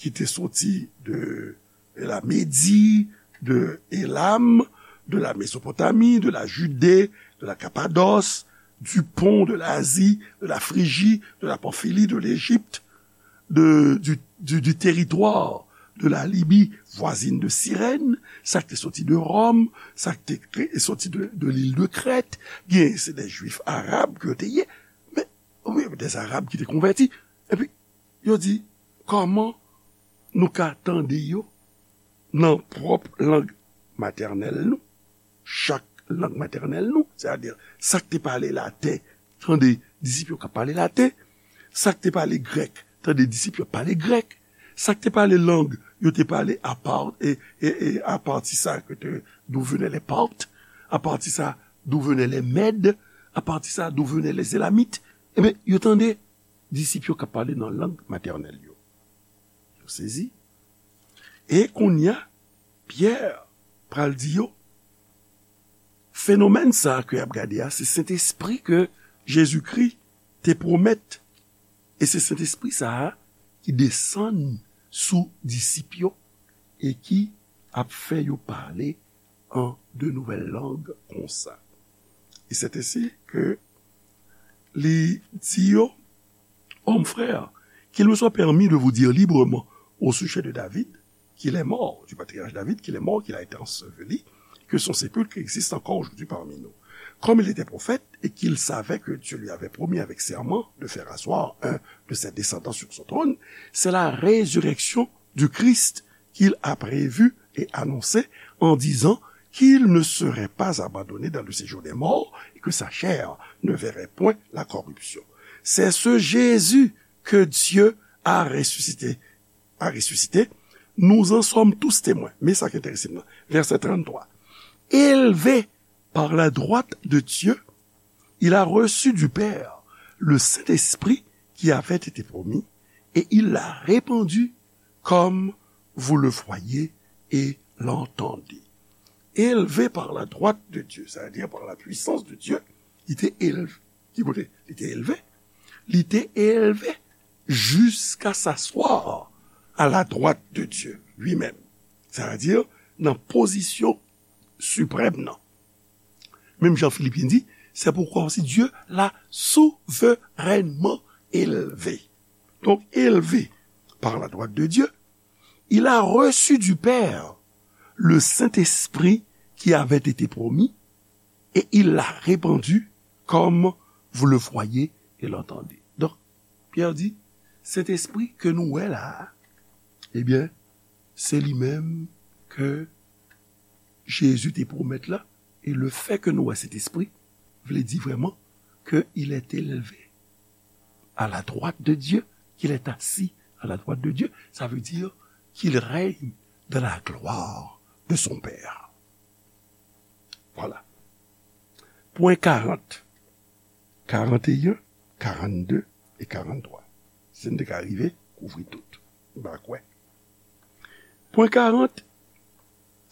ki te soti de, de la Médie, de Élam, de la Mésopotamie, de la Judée, de la Cappadoce, du Pont, de l'Asie, de la Phrygie, de la Pamphylie, de l'Égypte, de, du, du, du territoire de la Libye voisine de Cyrène, sa k te soti de Ròm, sa k te kre-, soti de, de l'île de Crète, gen se de Jwif arab ke yo te ye, men, wi, de Arab ki te konvèti. Epi, yo di, kòman nou ka tande yo nan pwòp lang matènèl nou, chak lang matènèl nou, sètadi sa k te pale laten, tande disip yo k ap pale laten, sa k te pale grèk, tande disip yo ap pale grèk, sa k te pale lang, yo te pale apa-, e, e, e, apati sa ke te, d'où venaient les Parthes, apati sa, d'où venaient les Mèdes, apati sa, d'où venaient les Élamites. Ebyen, yo tande disip yo k ap pale nan lang matènèl yo. Yo sezi. E kounye a, Pyè pral di yo, fenomèn sa a ke y ap gade a, se Sentespri ke Jezikri te pwomèt. E se Sentespri sa a ki desann sou disip yo e ki ap fè yo pale an de nouvèl lang konsa. Et c'est ainsi que li di yo, Hommes frères, qu'il me soit permis de vous dire librement au sujet de David, qu'il est mort, du patriarche David, qu'il est mort, qu'il a été enseveli, que son sépulcre existe encore aujourd'hui parmi nous. Comme il était prophète et qu'il savait que Dieu lui avait promis avec serment de faire asseoir un de ses descendants sur son trône, c'est la résurrection du Christ qu'il a prévu et annoncé en disant qu'il ne serait pas abandonné dans le séjour des morts et que sa chair ne verrait point la corruption. C'est ce Jésus que Dieu a ressuscité, a ressuscité. Nous en sommes tous témoins. Men sa k enterese m nan, vèsè tranntwa. Élevé par la droite de Dieu, il a reçu du Père le Saint-Esprit qui avait été promis, et il l'a répandu comme vous le voyez et l'entendez. Élevé par la droite de Dieu, c'est-à-dire par la puissance de Dieu, li te elve. Ki kote li te elve? Li te elve jusqu'à s'asseoir à la droite de Dieu lui-même. Sa vle di nan pozisyon siprèm nan. Menm jan Filipyen di, c'est pourquoi aussi Dieu l'a souverainement élevé. Donc, élevé par la droite de Dieu, il a reçu du Père le Saint-Esprit qui avait été promis et il l'a répandu comme vous le voyez et l'entendez. Donk, Pyè di, Sentespri ke nou wè la a, ebyen, se li menm ke Jezi te pwomèt la, e le fè ke nou wè Sentespri vle di vrèman ke il est élevé à la droite de Dieu, qu'il est assis à la droite de Dieu, ça veut dire qu'il règne dans la gloire de son Père. Voilà. Pwen karant, karanteyen, karannde e karanntwa. Si n te ka rive kouvri tout, m pa kwè. Pwen karant,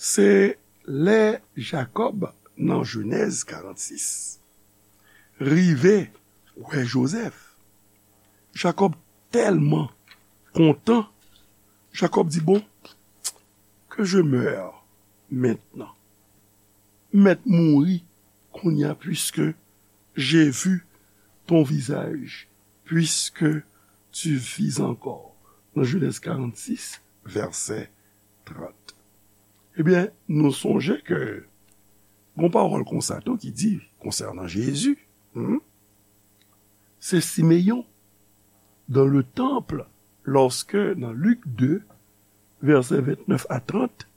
Se lè Jakòb, nan Jenèz karannsis, rive wè Jozèf, Jakòb tèlman kontan, Jakòb di, bon, que je meure maintenant. M mèt mouri kounye a, puisque j'ai vu ton visage, puisque tu vis encore. Nan Jenèz karannsis, vèsè trant. Ebyen, nou sonje ke gon pawòl konsa tou ki di konsènan Jezi, hmm, se Simeyon, dans le temple, lorsque, nan Lik de, vèsè ventnèf a trant,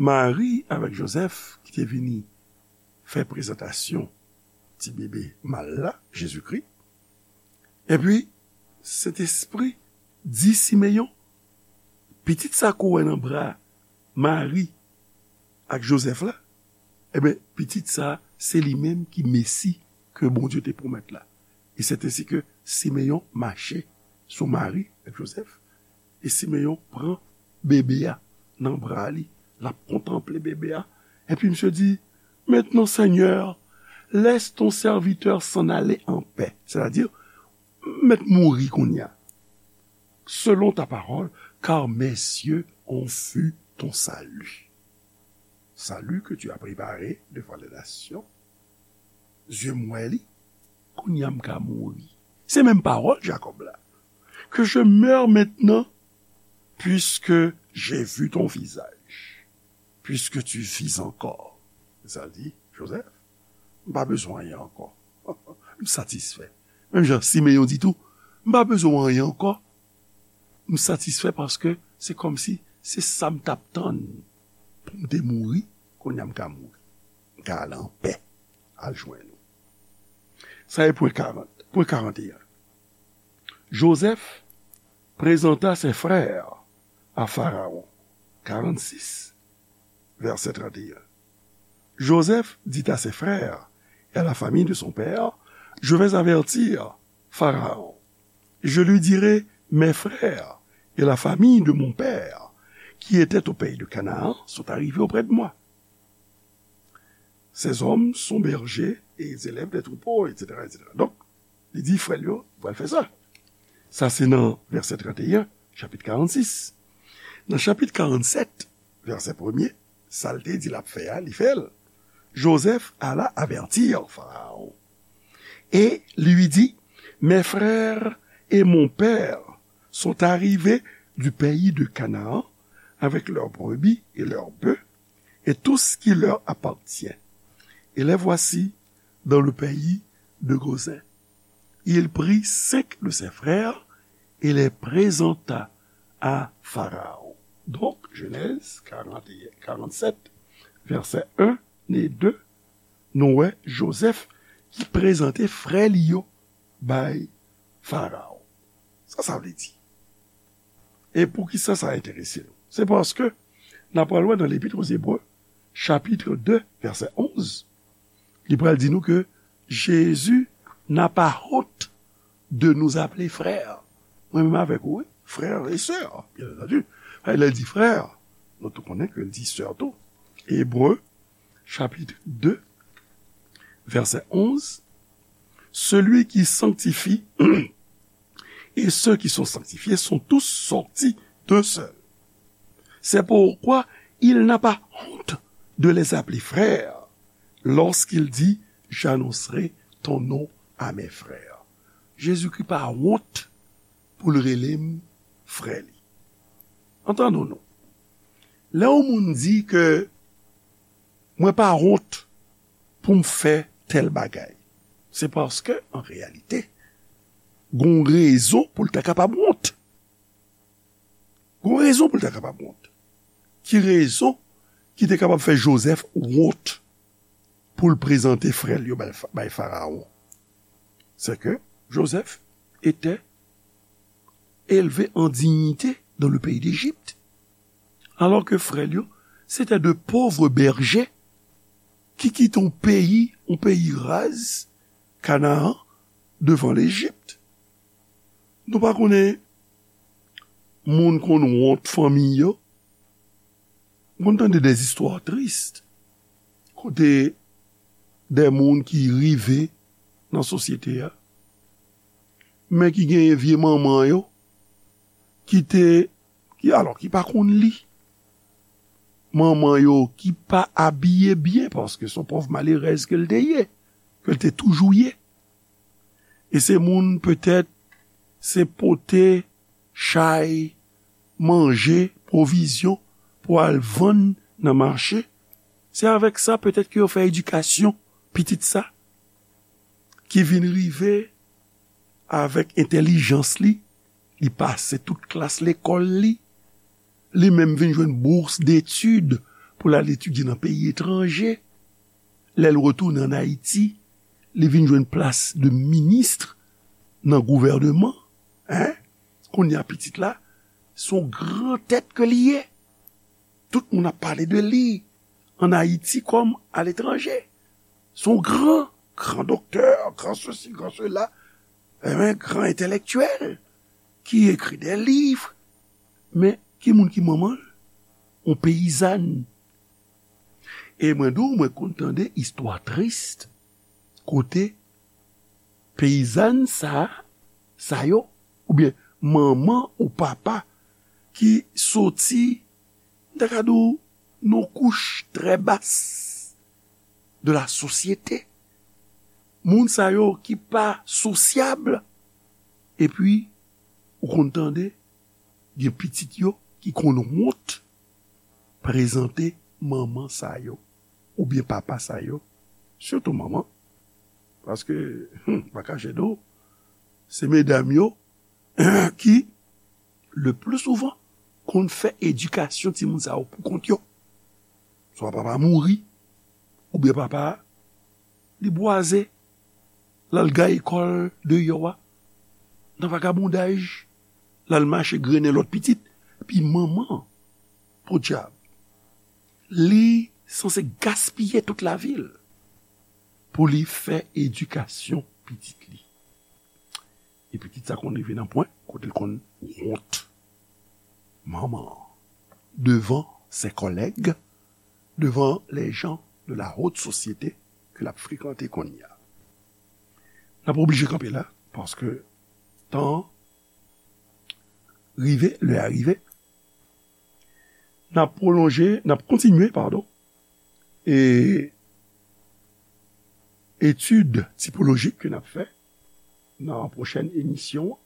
Mari avèk Jozèf ki te vini fè prezantasyon ti bebe mal la, Jezikri, epi Sentespri di Simeyon, pitit sa ke w wè nan bra Mari ak Jozèf la, ebyen, pitit sa, se li menm ki Mesi ke Bondye te pwomèt la. E se ensi ke Simeyon mache sou Mari ak Jozèf, e Simeyon pran bebe a nan bra li, l ap kontanple bebe a, epi misye di, maintenant, Seigneur, laisse ton serviteur s'en aller en paix. Sètadi, m mèt mouri kounye a. Selon ta parole, car mes yeux ont vu ton salut. Salut que tu as préparé devant les nations. Zye m wè li, kounye a m ka mouri. Se menm pawòl Jakòb la. Que je meure maintenant, puisque j'ai vu ton visage, puisque tu vis encore. Sa di, Jozèf, m pa bezwen anyen ankò. M satisfè. Menm jan Simeyon di tou, m pa bezwen anyen ankò. M satisfè paske se kòmsi se sa m t ap tann pou m te mouri, kounye a m ka mouri. M ka al anpè, al jwenn ou. Sa e pwen karant, pwen karanteyen. Joseph présenta ses frères à Pharaon. Karannsis, vèsè trannteyen. Joseph dit à ses frères et à la famille de son père, je vais avertir Pharaon. Je lui dirai, mes frères et la famille de mon père, qui étaient au pays de Canaan, sont arrivés auprès de moi. Ces hommes sont bergers et ils élèvent des troupeaux, et cetera, et cetera. Donk, li di frè l yo, pral fè sa. Sa se nan vèsè trannteyen, chapit karannsis. Nan chapit karannsèt, vèsè premye, sa l te di l ap fè a, li fè l. Joseph alla avertir Pharaon et lui dit, mes frères et mon père sont arrivés du pays de Canaan avec leurs brebis et leurs bœufs et tout ce qui leur appartient. Et les voici dans le pays de Gozin. Il prit cinq de ses frères et les présenta à Pharaon. Donk, Jenèz karannteyen, karannsèt, vèsè en e de, nou wè Joseph ki prezante frè li yo bay Faraon. Sa sa vle di? E poukisa sa enterese nou? Se paske n ap pral wè nan Lepit aux Hébreux, chapit de, vèsè onz, li pral di nou ke Jésus n'a pas honte de nous appeler frères. Mwen menm avèk ou, wi, frères et sœurs, bien entendu. Lè l di frè, nou tou konnen ke l di sè tou. Ebre, chapit de, vèsè onz, celui qui sanctifie et ceux qui sont sanctifiés sont tous sortis d'un seul. C'est pourquoi il n'a pas honte de les appeler frères lorsqu'il dit, j'annoncerai ton nom à mes frères. Jezikri pa wont pou l rele m frè li. Antann nou. Lè yon moun di ke mwen pa wont pou m fè tèl bagay, se paske, an reyalite, gon rezon pou l ta kapab wont. Gon rezon pou l ta kapab wont. Ki rezon ki te kapab fè Jozèf wont pou l prezante frè l yo bay, bay Farawon? C'est que Joseph était élevé en dignité dans le pays d'Égypte, alors que frè l yo, se te de pòv bèje ki kite yon peyi, yon peyi raz, Kanaan, devan Lejip. Nou pa konnen moun konn wont fanmi yo, M konn tande de zistwa tris kote de moun ki rive nan sosyete a, men ki genyen vye manman yo ki te, ki, alò, ki pa konn li. Manman yo ki pa abiye byen paske se yon pòv malerèz ke l te ye, ke l te toujou ye. E se moun petèt se pote chay, manje, pwovizyon pou al vann nan mache. Se avèk sa petèt ke yo fè edikasyon pitit sa ki vin rive avèk entèlijans li, li pase tout klas lekòl li, li menm vin jwenn bours d'études pou l al etidye nan peyi etranje. Lè l retounen ann Ayiti, li vin jwenn plas de minis nan gouvènman. Hein? Kounye a pitit la, se yon gran tèt ke li ye. Tout moun ap pale de li ann Ayiti kòm aletranje. Se yon gran, gran doktè, gran sesi, gran sela, eh ben, gran entèlektyèl ki ekri de liv. Men ki moun ki manman l? Yon peyizàn. E mwen di w, mwen konn tande istwa tris kote peyizàn sa, sa yo, oubyen manman ou papa ki soti, m ta ka di w, nan kouch trè bas de la sosyete. Moun sa yo ki pa sosyab, epi ou konn tande gen pitit yo ki konn wont prezante manman sa yo, oubyen papa sa yo, sitou manman, paske, hmm, pa kache di w, se medam yo ki, le pli souvan, konn fè edikasyon timoun sa yo pou kont yo. Swa papa mouri, oubyen papa li bwaze, l al gaye kò l deyò a, nan vagabondaj, l al mache grennen lòt pitit. Epi manman, podyab, li sanse gaspiye tout lavi l pou li fè edikasyon pitit li. E pitit sa konn rive nan pwen kote l konn wont manman an devan ses collègues, devan les gens de la haute société ke l ap frekante kounye a. N ap oblije kanpe la, paske tan an rive, lè a rive. N ap pwolonje, n ap kontinye, padon, e etid tipolojik ke n ap fè nan pwochèn emisyon an.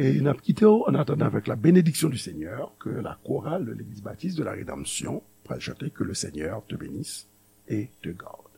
E n ap kite w, en attendant, avec la bénédiction du Seigneur, que la chorale de l'Église Baptiste de la Rédemption pral chante, Que le Seigneur te bénisse et te garde.